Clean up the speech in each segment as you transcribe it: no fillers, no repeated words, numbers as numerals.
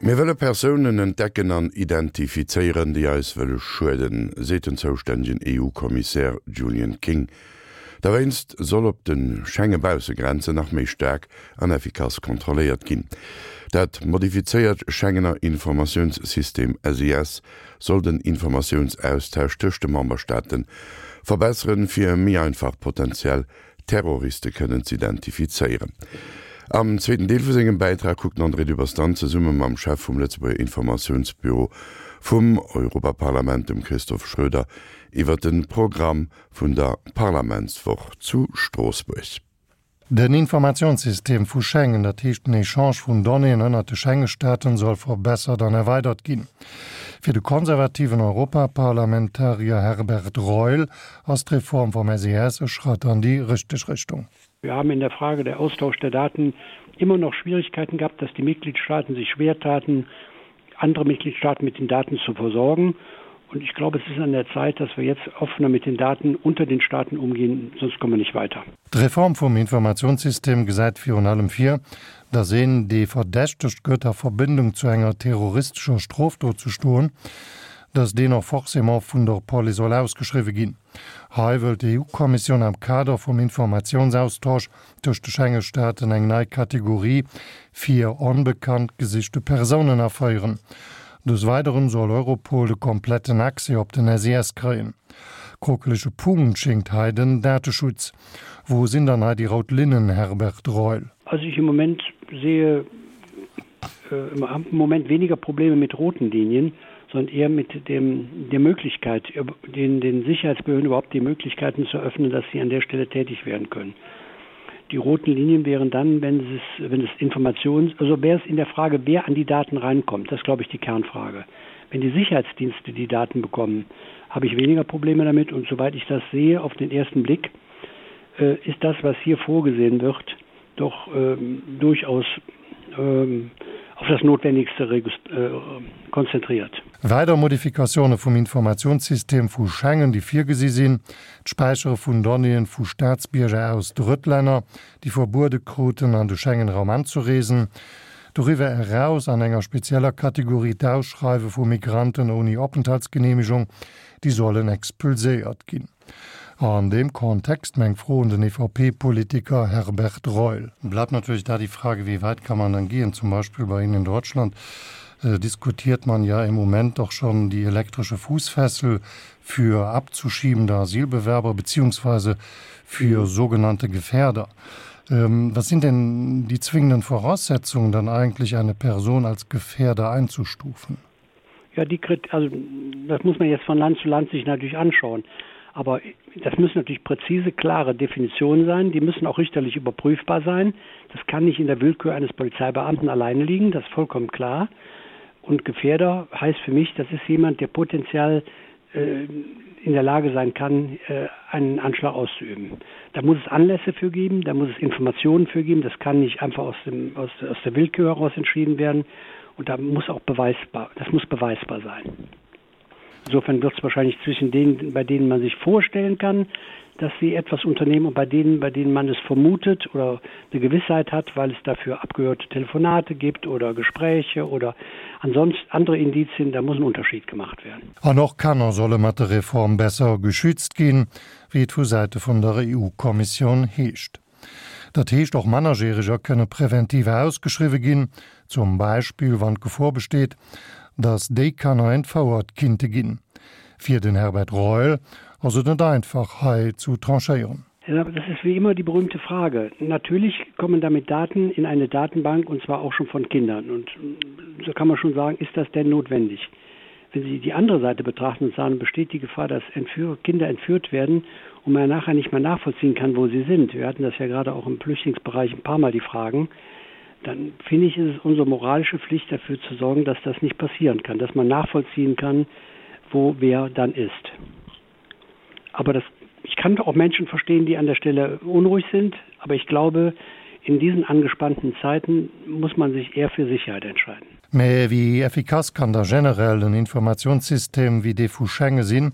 Mir wëlle Persounen entdecken an identifizéieren, déi eis wëlle schueden, seet den zoustännegen EU-Kommissär Julian King. Dowéinst soll op de Schenge-Baussegrenzen nach méi staark an effikass kontrolléiert ginn. Dat modifizéiert Schengener Informatiounssystem SIS soll den Informatiounsaustausch tëscht de Memberstaate verbesseren, fir méi einfach potenziell Terroriste kënnen z'identifizéieren. Am zweeten Deel vu sengem Bäitrag kuckt den André Dübbers dann zesumme mam Chef vum Lëtzebuerger Informatiounsbüro vum Europaparlament, dem Christophe Schroeder, iwwer de Programm vun der Parlamentswoch zu Stroossbuerg. Den Informatiounssystem vu Schengen, dat heescht den Echange vun Donnéeën ënnert de Schenge-Staaten, soll verbessert an erweidert ginn. Fir de konservativen Europaparlamentarier Herbert Reul ass d'Reform vom SES e Schratt an déi richteg Richtung. Wir haben in der Frage der Austausch der Daten immer noch Schwierigkeiten gehabt, dass die Mitgliedstaaten sich schwer taten, andere Mitgliedstaaten mit den Daten zu versorgen. Und ich glaube, es ist an der Zeit, dass wir jetzt offener mit den Daten unter den Staaten umgehen, sonst kommen wir nicht weiter. D'Reform vum Informatiounssystem gesäit virun allem vir, datt een, dee verdächtegt gëtt a Verbindung zu enger terroristescher Strofdot ze stoen, datt deen och forcément vun der Police soll ausgeschriwwe ginn. Hei wëllt d'EU-Kommissioun am Kader vum Informatiounsaustausch tëscht de Schenge-Staaten eng nei Kategorie fir onbekannt gesichte Persounen aféieren. Des Weideren soll Europol de kompletten Accès op den SIS kréien. Krokelege Punkt schéngt hei den Dateschutz. Wou sinn dann hei déi rout Linnen, Herbert Reul? Also ich im Moment sehe äh, im Moment weniger Probleme mit roten Linien, sondern eher mit dem, der Möglichkeit, den, den Sicherheitsbehörden überhaupt die Möglichkeiten zu öffnen, dass sie an der Stelle tätig werden können. Die roten Linien wären dann, wenn es, wenn es Informations, also wäre es in der Frage, wer an die Daten reinkommt. Das ist, glaube ich, die Kernfrage. Wenn die Sicherheitsdienste die Daten bekommen, habe ich weniger Probleme damit. Und soweit ich das sehe, auf den ersten Blick, äh, ist das, was hier vorgesehen wird, doch ähm, durchaus ähm, auf das Notwendigste äh, konzentriert. Weider Modifikatioune vum Informatiounssystem vu Schengen, déi virgesi sinn, d'Späichere vun Donnéeën vu Staatsbierger aus Drëttlänner, déi verbuede kruten, an de Schengen-Raum anzereesen, doriwwer eraus an enger spezieller Kategorie d'Ausschreiwe vu Migranten ouni Openthaltsgeneemegung, déi sollen expulséiert ginn. An deem Kontext meng Fro un den EVP-Politiker Herbert Reul. Bleibt natürlich da die Frage, wie weit kann man dann gehen? Zum Beispiel bei Ihnen in Deutschland diskutiert man ja im Moment doch schon die elektrische Fußfessel für abzuschiebende Asylbewerber beziehungsweise für sogenannte Gefährder. Was sind denn die zwingenden Voraussetzungen, dann eigentlich eine Person als Gefährder einzustufen? Ja, die also das muss man jetzt von Land zu Land sich natürlich anschauen. Aber das müssen natürlich präzise, klare Definitionen sein. Die müssen auch richterlich überprüfbar sein. Das kann nicht in der Willkür eines Polizeibeamten alleine liegen, das ist vollkommen klar. Und Gefährder heißt für mich, das ist jemand, der potenziell äh, in der Lage sein kann, äh, einen Anschlag auszuüben. Da muss es Anlässe für geben, da muss es Informationen für geben. Das kann nicht einfach aus, dem, aus, aus der Willkür heraus entschieden werden. Und da muss auch beweisbar, das muss beweisbar sein. Insofern wird es wahrscheinlich zwischen denen, bei denen man sich vorstellen kann, dass sie etwas unternehmen und bei denen, bei denen man es vermutet oder eine Gewissheit hat, weil es dafür abgehörte Telefonate gibt oder Gespräche oder ansonsten andere Indizien, da muss ein Unterschied gemacht werden. An och Kanner solle mat der Reform besser geschützt ginn, wéi et vu Säite vun der EU-Kommissioun heescht. Dat heescht, och Mannerjäreger kënne präventiv ausgeschriwwe ginn, zum Beispill wann d'Gefor besteet, datt déi Kanner entfouert kinnte ginn. Fir den Herbert Reul ass et net einfach, hei zu tranchéieren. Ja, das ist wie immer die berühmte Frage. Natürlich kommen damit Daten in eine Datenbank und zwar auch schon von Kindern. Und so kann man schon sagen, ist das denn notwendig? Wenn Sie die andere Seite betrachten und sagen, besteht die Gefahr, dass Entführ Kinder entführt werden und man nachher nicht mehr nachvollziehen kann, wo sie sind. Wir hatten das ja gerade auch im Flüchtlingsbereich ein paar Mal die Fragen. Dann finde ich, ist es unsere moralische Pflicht dafür zu sorgen, dass das nicht passieren kann, dass man nachvollziehen kann, wo wer dann ist. Aber das, ich kann auch Menschen verstehen, die an der Stelle unruhig sind, aber ich glaube, in diesen angespannten Zeiten muss man sich eher für Sicherheit entscheiden. Mä wéi effikass kann da generell en Informatiounssystem wéi dee vu Schengen sinn,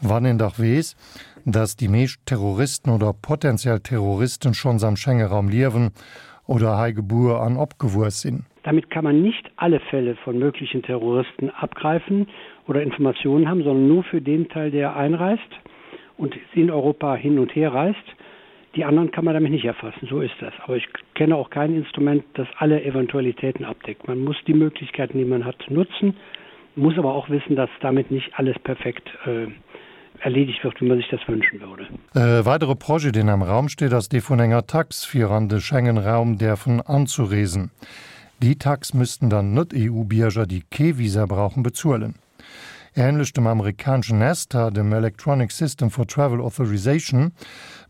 wann een dach weess, dass déi meescht Terroristen oder potenziell Terroristen schonns am Schengeraum liewen oder hei gebuer an opgewuess sinn? Da. Damit kann man nicht alle Fälle von möglichen Terroristen abgreifen oder Informationen haben, sondern nur für den Teil, der einreist und in Europa hin und her reist. Die anderen kann man damit nicht erfassen, so ist das. Aber ich kenne auch kein Instrument, das alle Eventualitäten abdeckt. Man muss die Möglichkeiten, die man hat, nutzen, muss aber auch wissen, dass damit nicht alles perfekt äh, erledigt wird, wie man sich das wünschen würde. E weidere Projet, deen am Raum steet, ass dee vun enger Tax, fir an de Schengen-Raum däerfen anzureesen. Déi Tax müssten dann Net-EU-Bierger, déi kee Visa brauchen, bezuelen. Änlech dem amerikaneschen ESTA, dem Electronic System for Travel Authorization,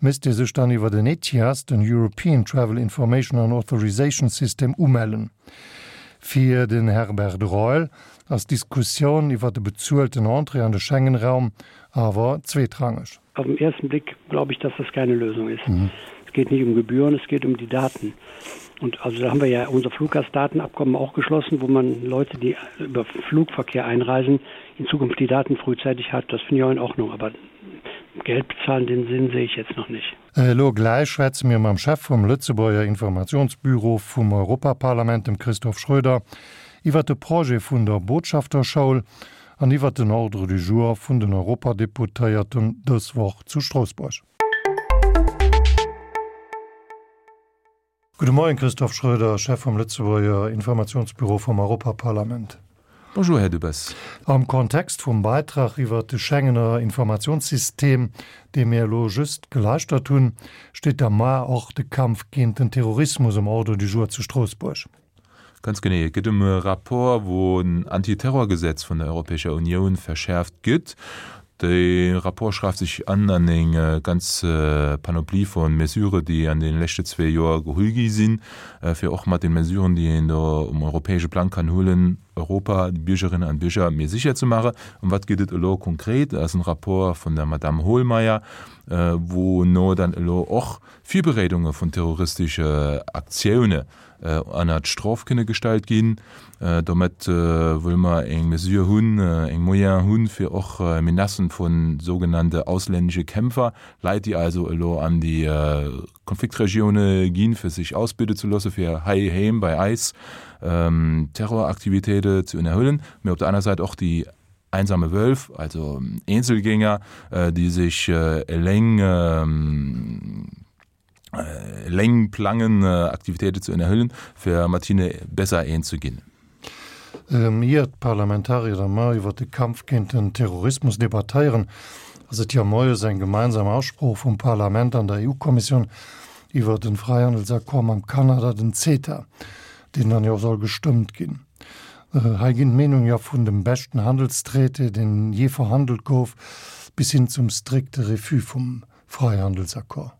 misst ee sech dann iwwer den ETIAS, den European Travel Information and Authorization System, umellen. Fir den Herbert Reul ass d'Diskussioun iwwer de bezuelten Entrée an de Schengen-Raum awer zweetrangeg. Auf den ersten Blick glaube ich, dass das keine Lösung ist. Mhm. Es geht nicht um Gebühren, es geht um die Daten. Und also da haben wir ja unser Fluggastdatenabkommen auch geschlossen, wo man Leute, die über Flugverkehr einreisen, in Zukunft die Daten frühzeitig hat. Das finde ich auch in Ordnung. Aber Geld bezahlen, den Sinn sehe ich jetzt noch nicht. Elo gläich schwätze mir mam Chef vum Lëtzebuerger Informationsbüro vum Europaparlament, dem Christoph Schröder, iwwer de Projet vun der Botschafterschoul an iwwer den Ordre du jour vun den Europadeputéierten dës Woch zu Stroossbuerg. Gudde Moien, Christophe Schröder, Chef vum Lëtzebuerger Informationsbüro vum Europaparlament. Bonjour, Här Dubes. Am Kontext vum Beitrag iwwer de Schengener Informationssystem, dee mir elo just gelauschtert hunn, steet da mar och de Kampf géint den Terrorismus um Ordre du jour zu Stroossbuerg. Ganz genee. Et gëtt ëm e Rapport, wou en Antiterrorgesetz vun der Europäescher Unioun verschäerft gëtt. De Rapport schreift sech an an eng ganz Panoplie vu Mesurë, déi an de leschte zwee Joer geholl gi sinn, fir och mat de Mesuren, déi een do um europäesche Plang kann huelen, Europa, déi Biergerinnen an Bierger méi sécher ze maachen. Ëm wat geet et elo konkret? Dat ass en Rapport vun der Madame Hohlmeier, wou no dann elo och Virbereedunge vun terroristesche Aktioune ënnert Strof kënne gestallt ginn. Domat wëlle mer eng Mesure hunn, eng Moyen hunn, fir och Menacen vu sougenannte auslännesche Kämpfer, Leit, déi also elo an déi Konfliktregioune ginn, fir sech ausbilde ze loosse fir heiheem bei eis Terroraktivitéite ze ënnerhuelen, mee op der aner Säit och déi einsame Wölf, also Eenzelgänger, déi sech eleng eleng plangen, Aktivitéite ze ënnerhuelen, fir mat hinne besser eens ze ginn. Ier d'Parlamentarier da mar iwwer de Kampf géint den Terrorismus debattéieren, ass et jo moies eng gemeinsam Aussprooch vum Parlament an der EU-Kommissioun iwwer den Fräihandelsaccord mam Kanada, den CETA, deen dann jo soll gestëmmt ginn. Hei ginn d'Meenung jo vun dem beschten Handelstraité, deen jee verhandelt gouf, bis hin zum strikte Refus vum Fräihandelsaccord.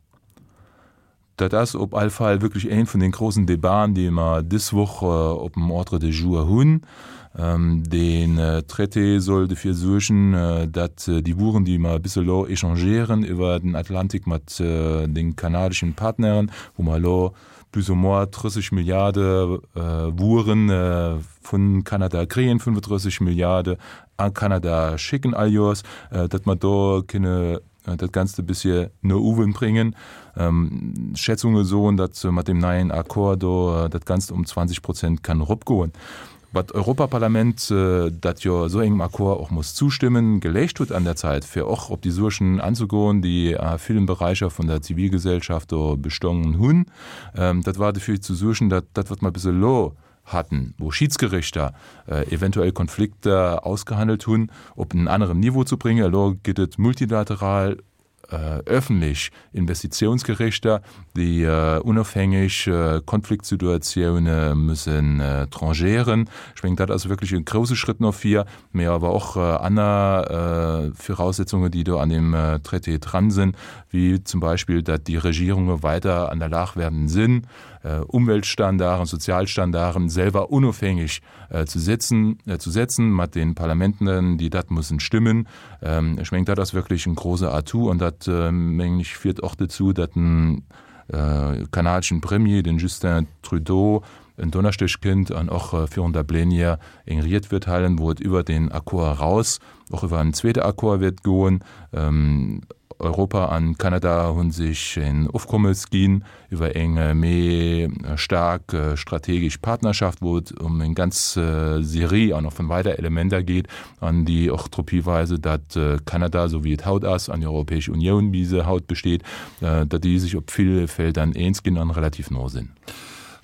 Dat ass op all Fall wierklech een vun den grossen Debaten, déi mer dës Woch op dem Ordre de jour hunn. Deen Traité soll dofir suergen, datt déi Wueren, déi mer bis elo échangéieren iwwer den Atlantik mat de kanadeschen Partneren, wou mer elo plus ou moins 30 Milliarde Wueren vun Kanada kréien, 35 Milliarde a Kanada schécken all Joers, datt mer do kënne dat Ganzt e bëssche no uewen bréngen. Schätzunge soen, datt mat deem neien Accord do dat Ganzt um 20 Prozent kann eropgoen. Wat d'Europaparlament, dat jo esou engem Accord och muss zustëmmen, geleescht huet an der Zäit, fir och op déi Suergen anzegoen, déi a villen Beräicher vun der Zivilgesellschaft do bestongen hunn, dat war dofir ze suergen, datt dat, wat mer bis elo hatten, wou Schiedsgerichter eventuell Konflikter ausgehandelt hunn, op en aneren Niveau ze bréngen. Elo gëtt et multilateral öffentlech Investitiounsgerichter, déi unofhängeg Konfliktsituatioune müssen tranchéieren. Ech mengen, dat ass wierklech e grouse Schrëtt no vir, mee awer och aner Viraussetzungen, déi do an deem Traité dran sinn, wéi zum Beispill, datt déi Regierunge weider an der Lag werden sinn, Umweltstandarden, Sozialstandarden selwer unofhängig zu setzen, zu setzen mat den Parlamenten, déi dat mussen stimmen. Ech mengen, dat ass wierklech en grouse Atout an dat, mengen ech, fiert och dozou, datt den kanadeschen Premier, den Justin Trudeau, en Donneschdeg kënnt an och virun der Plénière eng Ried wäert halen, wou et iwwert deen Accord eraus och iwwer en zweete Accord wäert goen. Europa an Kanada hu sech en Ofkommes ginn iwwer eng méi staark strategesch Partnerschaft, wou et ëm eng ganz Serie an och vun weider Elementer geet an déi och drop hiweisen, datt Kanada, esou wéi et haut ass, an déi Europäesch Unioun, wéi se haut besteet, datt déi sech op ville Feldern eens ginn an relativ no sinn.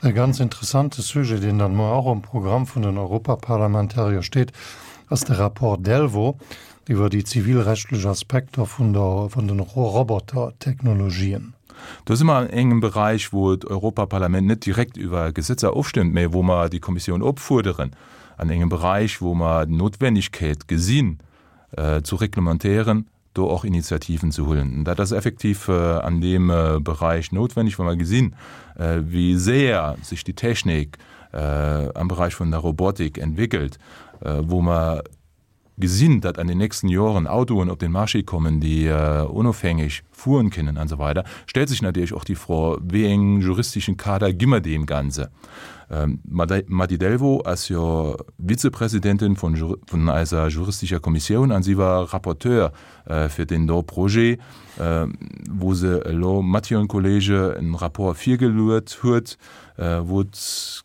E ganz interessante Sujet, deen dann muer och um Programm vun den Europaparlamentarier steet, ass de Rapport Delvaux iwwer déi zivilrechtlech Aspekter vun der vun den Robotertechnologien. Do si mer an engem Beräich, wou d'Europaparlament net direkt iwwer Gesetzer ofstëmmt, mä wou mer déi Kommissioun opfuerderen, an engem Beräich, wou mer d'Notwennegkeet gesinn, zu reglementéieren, do och Initiativen ze huelen. Dat ass effektiv an deem Beräich noutwenneg, wa mer gesinn, wéi séier sech déi Technik am Beräich vun der Robotik entwéckelt, wou mer gesinn, datt an den nächsten Joren Autoen op den Marché kommen, déi onofhängeg fueren kënnen an esou weider, stellt sech natierlech och déi Fro, wéi eng juristeschen Kader gi mer deem Ganze? D'Mady Delvaux ass jo Vizepresidentin vun eiser juristescher Kommissioun an si war Rapporteur fir deen do Projet, wou se elo mat hiren Kollege en Rapport virgeluet huet, wou et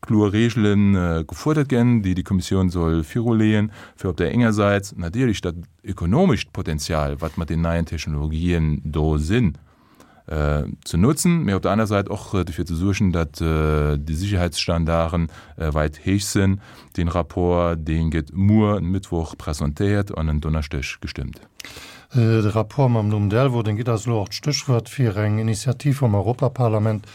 kloer Regele gefuerdert ginn, déi déi Kommissioun soll viruleeën, fir op där enger Säit natierlech dat ökonomescht Potenzial, wat mat den neien Technologien do sinn, ze nutzen, mä op der aner Säit och dofir ze suergen, datt déi Sicherheitsstandarden weit héich sinn. Dee Rapport, dee gëtt muer en Mëttwoch presentéiert an en Donneschdeg gestëmmt. De Rapport mam Numm Delvaux, deen gitt eis elo och d'Stéchwuert fir eng Initiativ vum Europaparlament,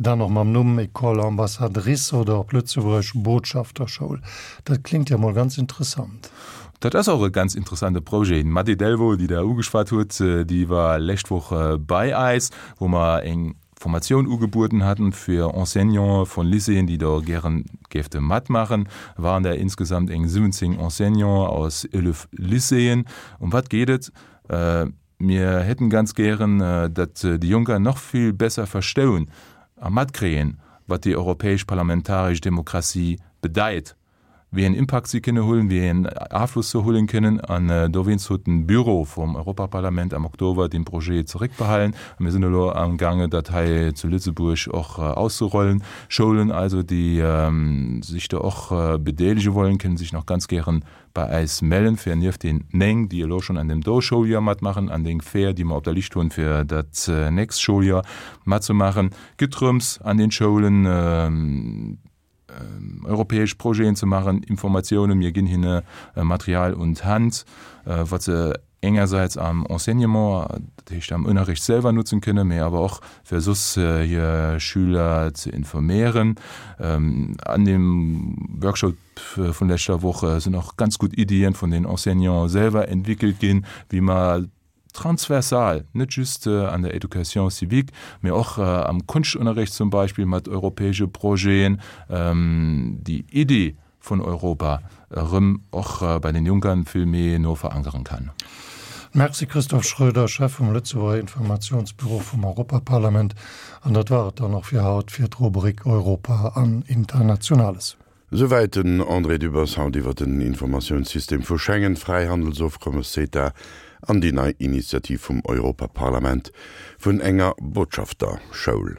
Dann och mam Numm École Ambassadrice oder op Lëtzebuergesch Botschafterschoul. Dat klingt jo mol ganz interessant. Dat ass och e ganz interessante Projet. D'Mady Delvaux, déi Der ugeschwat hutt, déi war lescht Woch bei eis, wou mer eng Formatioun ugebueden haten fir Enseignanten vun Lycéeën, déi do gären géifte matmaachen. Waren der insgesamt eng 17 Enseignanten aus 11 Lycéeën. Ëm wat geet et? Mir hätten ganz gären, datt déi Jonker nach vill besser verstoun a matkréien, wat déi europäesch parlamentaresch Demokratie bedeit, wéi een Impakt si kënne hunn, wéi een Afloss se huelen kënnen. An dowéinst huet den Büro vum Europaparlament am Oktober dee Projet zeréckbehalen. A mir sinn elo amgaange dat hei zu Lëtzebuerg och auszerollen. Schoulen also, déi sech do och bedeelege wollen, kënnen sech nach ganz gären bei äis mellen, fir nieft den 9, déi elo schonn an dem do Schouljoer matmaachen, an den 4, déi mer op der Lischt hunn, fir dat nächst Schouljoer matzemaachen. Gëtt drëms, an den Schoulen europäesch Projeten ze maachen, Informatiounen, mir ginn hinne Material un d'Hand, wat se engersäits am Enseignement, dat heescht am Ënnerricht selwer nutzen kënnen, mee awer och fir soss hir Schüler ze informéieren. An deem Workshop vun leschter Woch sinn och ganz gutt Iddien vun den Enseignanten selwer entwickelt ginn, wéi mer transversal, net just an der Education civique, mee och am Konschtunterricht zum Beispill mat europäesche Projeten, déi Iddi vun Europa erëm och bei den Junkern vill méi no verankeren kann. Merci Christophe Schroeder, Chef vum Lëtzebuerger Informationsbüro vum Europaparlament. An dat war et dann och fir haut fir d'Rubrik Europa an Internationales. Souwäit den André Dübbers haut iwwer den Informatiounssystem vu Schengen, d'Fräihandelsofkommes CETA an déi nei Initiativ vum Europaparlament vun enger Botschafterschoul.